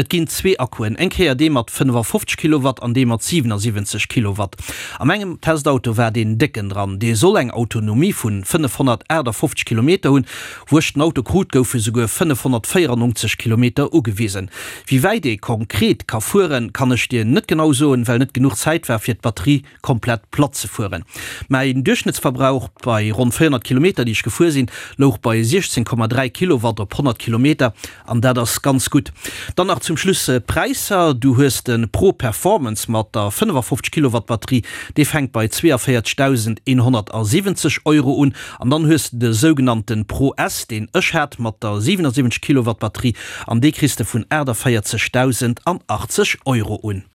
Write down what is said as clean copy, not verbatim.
Et ginn zwee Akkuen, eng Kéier dee mat 55 Kilowatt an dee mat 77 Kilowatt. A mengem Testauto war deen décken dran. Dee soll eng Autonomie vun 558 Kilometer hunn. Wou ech den Auto krut, goufe souguer 594 Kilometer ugewisen. Wéi wäit ee konkret ka fueren, kann ech dir net genau soen, well net genuch Zäit war fir d'Batterie komplett platt ze fueren. Mäin Duerchschnëttsverbrauch bei ronn 400 Kilometer, déi ech gefuer sinn, louch bei 16,3 Kilowatt op 100 Kilometer an dat ass ganz gutt. Dann nach zum Schluss d'Präisser, Du hues de Pro Performance mat der 55 Kilowatt Batterie, dee fänkt bei 42.170 Euro un an dann hues de de sougenannte Pro S, deen ech hat, mat der 77 Kilowatt Batterie an dee kriss de vun 48.080 Euro un.